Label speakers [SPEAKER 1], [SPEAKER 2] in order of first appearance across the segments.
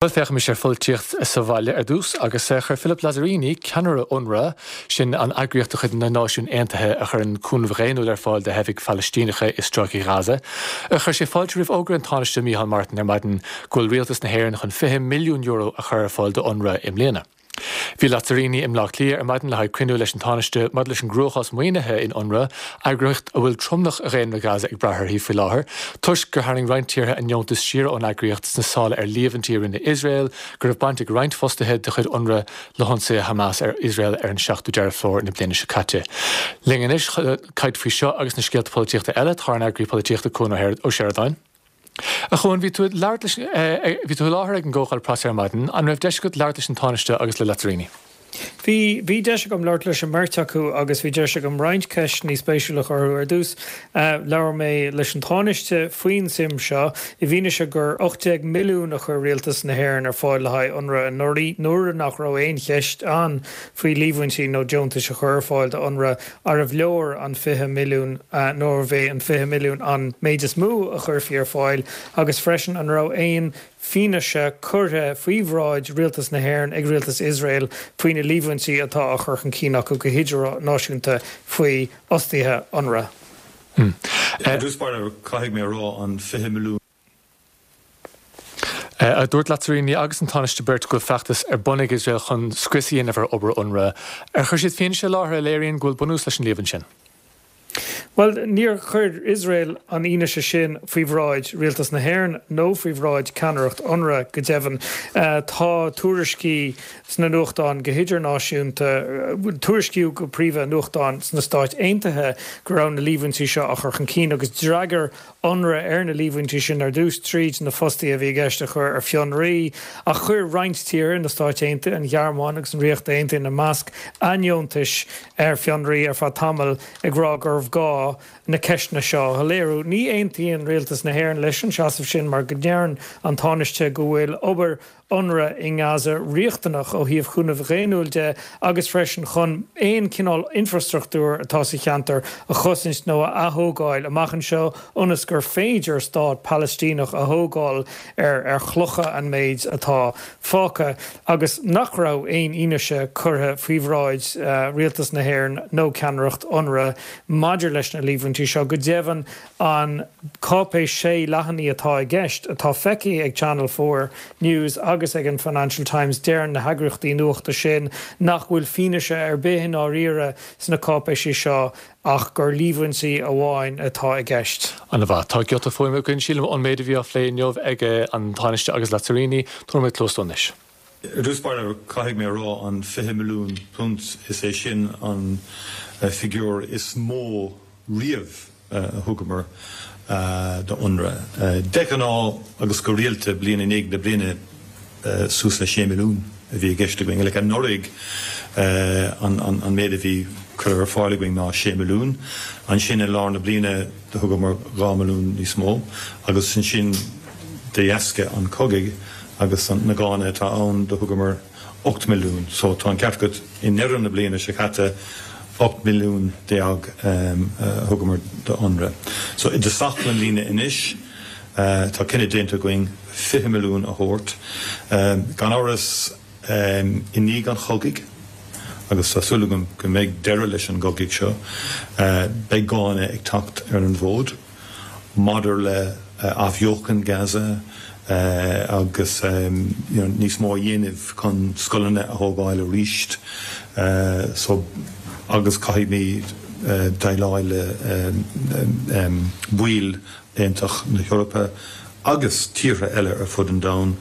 [SPEAKER 1] Bhuel, féachaimis ar pholaitíocht sa bhaile ar dtús, agus chuir Philip Lazzarini, ceannaire Unrwa, sin an eagraíocht de chuid na Náisiún Aontaithe a chuireann cúnamh dhaonnúil ar fáil do theifigh Phalaistíneacha i Stráice Ghaza, chuir sé fáilte roimh fhógra an Tánaiste Micheál Martin ar maidin go bhfuil Rialtas na hÉireann chun €20 milliún a chur ar fáil do Unrwa i mbliana. Bhí Lazzarini i mBleá Cliath ar maidin le haghaidh cruinniú leis an Tánaiste maidir leis an gcruachás maoinithe in Unrwa, eagraíocht a bhfuil tromlach dhaonra Gaza ag brath uirthi faoi láthair, toisc gur tharraing roinnt tíortha a ndeontais siar ón eagraíocht sna sála ar líomhaintí a rinne Iosrael go raibh baint ag roinnt fostaithe de chuid Unrwa le hionsaithe Hamas ar Iosrael ar an 7ú Deireadh Fómhair na bliana seo caite. Linn anois chun caint faoi seo agus na scéalta polaitíochta eile tá ár n-eagraí polaitíochta Cuan Ó Seireadáin. A Chuain, bhí tú ag labhairt leis, bhí tú i láthair ag an gcomhdháil preasa ar maidin, an raibh deis agat labhairt leis an Tánaiste agus le Lazzarini?
[SPEAKER 2] Bhí, bhí deis agam labhairt leis an mbeirt acu agus bhí deis agam roinnt ceisteanna spéisiúla a chur orthu. Ar dtús, labhair mé leis an Tánaiste faoin suim seo, i bhfianaise gur 18 milliún a chuir Rialtas na hÉireann ar fáil le haghaidh Unrwa anuraidh, nuair nach raibh aon cheist ann faoi líomhaintí nó deontais a chur ar fáil do Unrwa. Arbh leor an 20 milliún nó arbh é an 20 milliún an méid is mó a chuirfí ar fáil agus freisin an raibh aon fianaise curtha faoi bhráid Rialtas na hÉireann ag Rialtas Iosrael faoi na líomhaintí atá á chur chun cinn acu go hidirnáisiúnta faoi fhostaithe Unrwa.
[SPEAKER 3] I dtús báire, caithfidh mé a rá, an 20 milliún.
[SPEAKER 1] Dúirt Lazzarini agus an Tánaiste beirt go bhfuil feachtas ar bun ag Iosrael chun scrios a dhéanamh ar obair Unrwa. Ar chuir siad fianaise i láthair a léiríonn go bhfuil bunús leis an líomhain sin?
[SPEAKER 2] Bhuel, níor chuir Iosrael an fhianaise sin faoi bhráid Rialtas na hÉireann nó faoi bhráid ceannaireacht Unrwa, go deimhin. Tá tuairiscí sna nuachtáin go hidirnáisiúnta, tuairiscíodh go príomha i nuachtáin sna Stáit Aontaithe go raibh na líomhaintí seo á chur chun cinn agus d'fhreagair Unrwa ar na líomhaintí sin ar dtús tríd na fostaithe a bhí i gceist a chur ar fionraí, ach chuir roinnt tíortha, na Stáit Aontaithe, an Ghearmáin agus an Ríocht Aontaithe ina measc, a ndeontais ar fionraí ar feadh tamaill ag rá gurbh gá na ceisteanna seo a shoiléiriú. Ní aontaíonn Rialtas na hÉireann leis an seasamh sin mar go ndeireann an Tánaiste go bhfuil obair Unrwa i nGaza riachtanach ó thaobh chúnamh dhaonnúil de agus freisin chun aon chineál infreastruchtúir atá sa cheantar a chosaint nó a athógáil amach anseo ionas gur féidir stát Palaistíneach a thógáil ar ar chlocha an méid atá fágtha agus nach raibh aon fhianaise curtha faoi bhráid Rialtas na hÉireann nó ceannaireacht Unrwa maidir leis na líomhaintí seo. Go deimhin, An cáipéis sé leathanaigh atá i gceist, atá feicthe ag Channel 4 News agus ag an Financial Times, deireann na heagraíochtaí nuachta sin nach bhfuil fianaise ar bith i ndáiríre sna cáipéisí seo ach gur líomhaintí amháin atá i gceist.
[SPEAKER 1] An-mhaith. Tá giota fuaime againn, sílim, ón méid a bhí á phlé inniu ag an Tánaiste agus Lazzarini. Tabharfaidh mé cluas dó anois.
[SPEAKER 3] I dtús báire, caithfidh mé a rá, an £20 milliún, is é sin an figiúr is mó riamh a thugamar do Unrwa. De ghnáth agus go rialta, bliain i ndiaidh na bliana, suas le 6 milliún a bhí i gceist againn. Like anuraidh, an méid a bhí curtha ar fáil againn ná 6 milliún. Ansin i lár na bliana do thugamar 2 milliún níos mó agus ansin de dheasca an chogaidh agus na gánna atá ann do thugamar 8 milliún. So tá an ceart agat, i ndeireadh na bliana seo caite, 18 milliún a thugamar do Unrwa. So i dtosach na bliana anois, tá cinneadh déanta againn 20 milliún a thabhairt. Gan amhras, i ndiaidh an chogaidh, agus tá súil agam go mbeidh deireadh leis an gcogadh seo, beidh gánna ag teacht ar an bhfód. maidir le athbheochan Gaza agus you know níos mó a dhéanamh chun scoileanna a thógáil arís so agus caithfimid déileáil le baill Aontas na hEorpa agus tíortha eile ar fud an domhain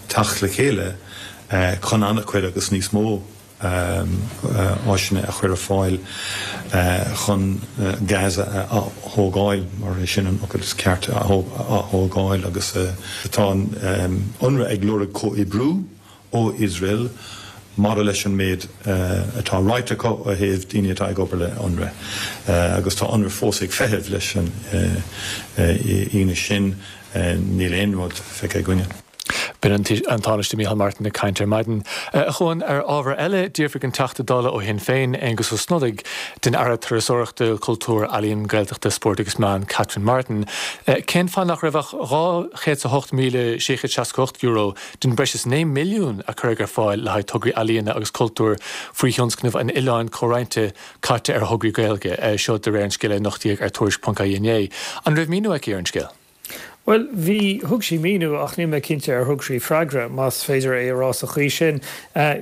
[SPEAKER 3] teacht le chéile chun an-chuid agus níos mó áiseanna a chur ar fáil chun Gaza a ath-thógáil, mar é sin an focal is ceart, a ath-thógáil agus tá Unrwa ag lorg comhoibriú ó Iosrael maidir leis an méid atá ráite acu ó thaobh daoine atá ag obair le Unrwa agus tá Unrwa fós ag feitheamh leis an fhianaise sin, níl aon rud feicthe againne.
[SPEAKER 1] B'in an Tánaiste Micheál Martin ag caint ar maidin. A Chuain, ar ábhar eile, d'fhiafraigh an Teachta Dála ó Shinn Féin, Aengus Ó Snodaigh, den Aire Turasóireachta, Cultúir, Ealaíon, Gaeltachta, Spóirt agus Meán, Catherine Martin, cén fáth nach raibh ach €208,668 den breis is 9 milliún a cuireadh ar fáil le haghaidh tograí ealaíona agus cultúir faoi thionscnamh an Oileáin Chomhroinnte caite ar thograí Gaeilge, seo de réir an scéil a nochtaíodh ar Tuairisc.ie inné. An raibh míniú aici ar an scéal?
[SPEAKER 2] Bhuel, bhí, thug sí míniú ach níl mé cinnte ar thug sí freagra, más féidir é a rá sa chaoi sin.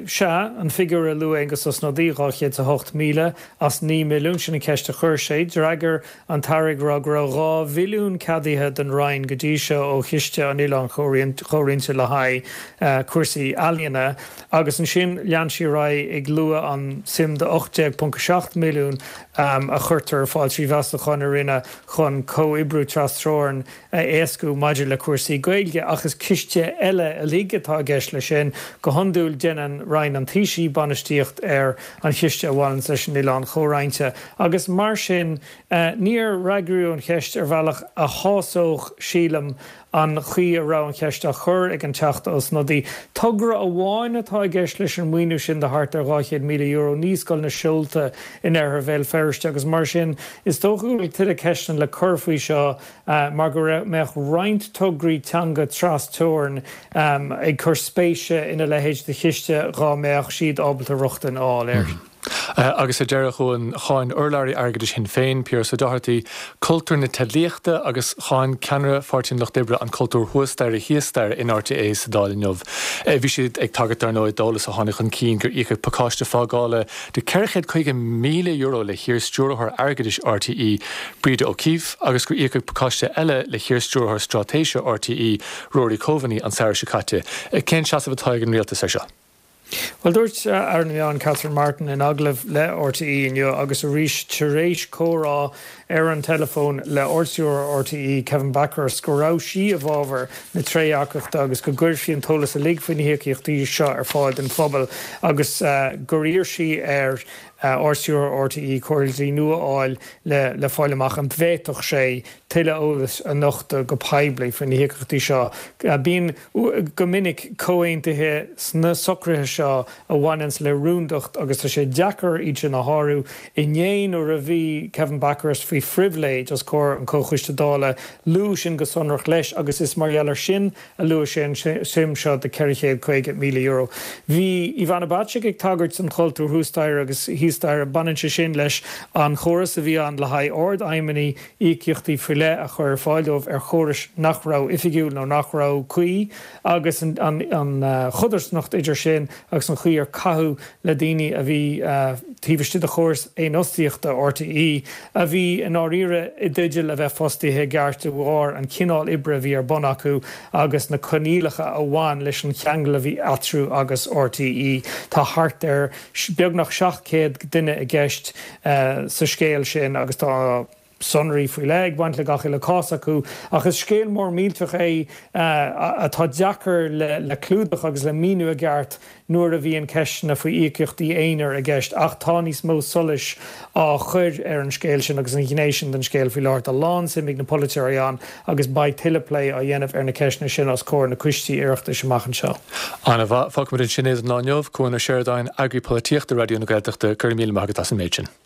[SPEAKER 2] Sea, an figiúr a luaigh Aengus Ó Snodaigh, 208,000 as 9 milliún, sin an cheist a chuir sé. D'fhreagair an tAire ag rá go raibh 2 mhilliún ceadaithe don Roinn go dtí seo ó Chiste an Oileáin Chomhroinnte le haghaidh cúrsaí ealaíona agus ansin lean sí ar aghaidh ag lua an suim de 18.7 milliún a chuirtear ar fáil trí mheastacháin a rinneadh chun comhoibriú trasteorann a éascú maidir le cúrsaí Gaeilge, ach is ciste eile uilig atá i gceist leis sin. Go hiondúil déanann Roinn an Taoisigh bainistíocht ar an chiste a bhaineanns leis an Oileán Chomhroinnte agus mar sin níor fhreagraíodh an cheist ar bhealach a shásódh, sílim, an chaoi a raibh an cheist á chur ag an Teachta Ó Snodaigh. Togra amháin atá i gceist leis an maoiniú sin de thart ar €200,000, Naíscoil na Seolta in oirthear Bhéal Feirste agus mar sin is dócha go bhfuil tuilleadh ceisteanna le cur faoi seo mar go mbeadh roinnt tograí teanga tras-teorann ag cur spéise ina leithéid de chiste dhá mbeadh siad ábalta rochtain a fháil air.
[SPEAKER 1] Agus ar deireadh, a Chuain, cháin urlabhraí airgeadais Shinn Féin, Piaras Ó Dochartaigh, cultúr na teidlíochta agus cháin ceannaire Pháirtí an Lucht Oibre an cultúr thuas staighre thíos staighre in RTÉ sa Dáil inniu. Bhí siad ag tagairt dar ndóigh d'eolas a tháinig chun cinn gur íocadh pacáiste fágála de €450,000 le hiar-stiúrthóir airgeadais RTÉ, Breda O'Keeffe, agus gur íocadh pacáiste eile le hiar-stiúrthóir straitéise RTÉ, Rory Coveney, an samhradh seo caite. Cén seasamh atá ag an rialtas air seo?
[SPEAKER 2] Bhuel, dúirt Aire na Meán Catherine Martin in agallamh le RTÉ inniu agus arís tar éis comhrá ar an teileafón le Ardstiúrthóir RTÉ Kevin Bakhurst go raibh sí i bhfabhar na trédhearcachta agus go gcuirfí an t-eolas uilig faoi na híocaíochtaí seo ar fáil don phobal agus gur iarr sí ar Ardstiúrthóir RTÉ comhairle dlí nua a fháil le fáil amach an bhféadfadh sé tuilleadh eolais a nochtadh go poiblí faoi na híocaíochtaí seo. Bíonn, go minic, comhaontuithe sna socruithe seo a bhaineanns le rúndacht agus tá sé deacair iad sin a shárú. Inné nuair a bhí Kevin Bakhurst faoi phribhléid os comhair an Chomhchoiste Dála, luadh sin go sonrach leis agus is mar gheall air sin a luaigh sé an suim seo de €450,000. Bhí Ivana Bacik ag tagairt don chultúr thuas staighre agus thíos staighre. Baineann sé sin leis an chóras a bhí ann le haghaidh ardfheidhmeannaigh íocaíochtaí faoi leith a chur ar fáil dóibh ar chórais nach raibh oifigiúil nó nach raibh cuí agus an chodarsnacht idir sin agus an chaoi ar caitheadh le daoine a bhí taobh istigh de chóras fhéinfhostaíochta RTÉ a bhí i ndáiríre i dteideal a bheith fostaithe i gceart de bharr an chineál oibre a bhí ar bun acu agus na coinníollacha a bhain leis an cheangal a bhí eatarthu agus RTÉ. Tá thart ar beagnach 700 duine i gceist sa scéal sin agus tá sonraí faoi leith ag baint le gach uile cás acu. Ach is scéal mór millteach é atá deacair le clúdach agus le míniú i gceart nuair a bhíonn ceisteanna faoi íocaíochtaí aonair i gceist ach tá níos mó solais á chur ar an scéal sin agus an ghné sin den scéal faoi láthair. Tá lán-suim ag na polaiteoirí ann agus beidh tuilleadh plé á dhéanamh ar na ceisteanna sin os comhair na coistí Oireachtais amach anseo.
[SPEAKER 1] Ana-mhaith. Fágfaimid ansin é don lá inniu. Cuan Ó Seireadáin, Eagraí Polaitíochta Raidió na Gaeltachta, go raibh míle maith agat as an méid sin.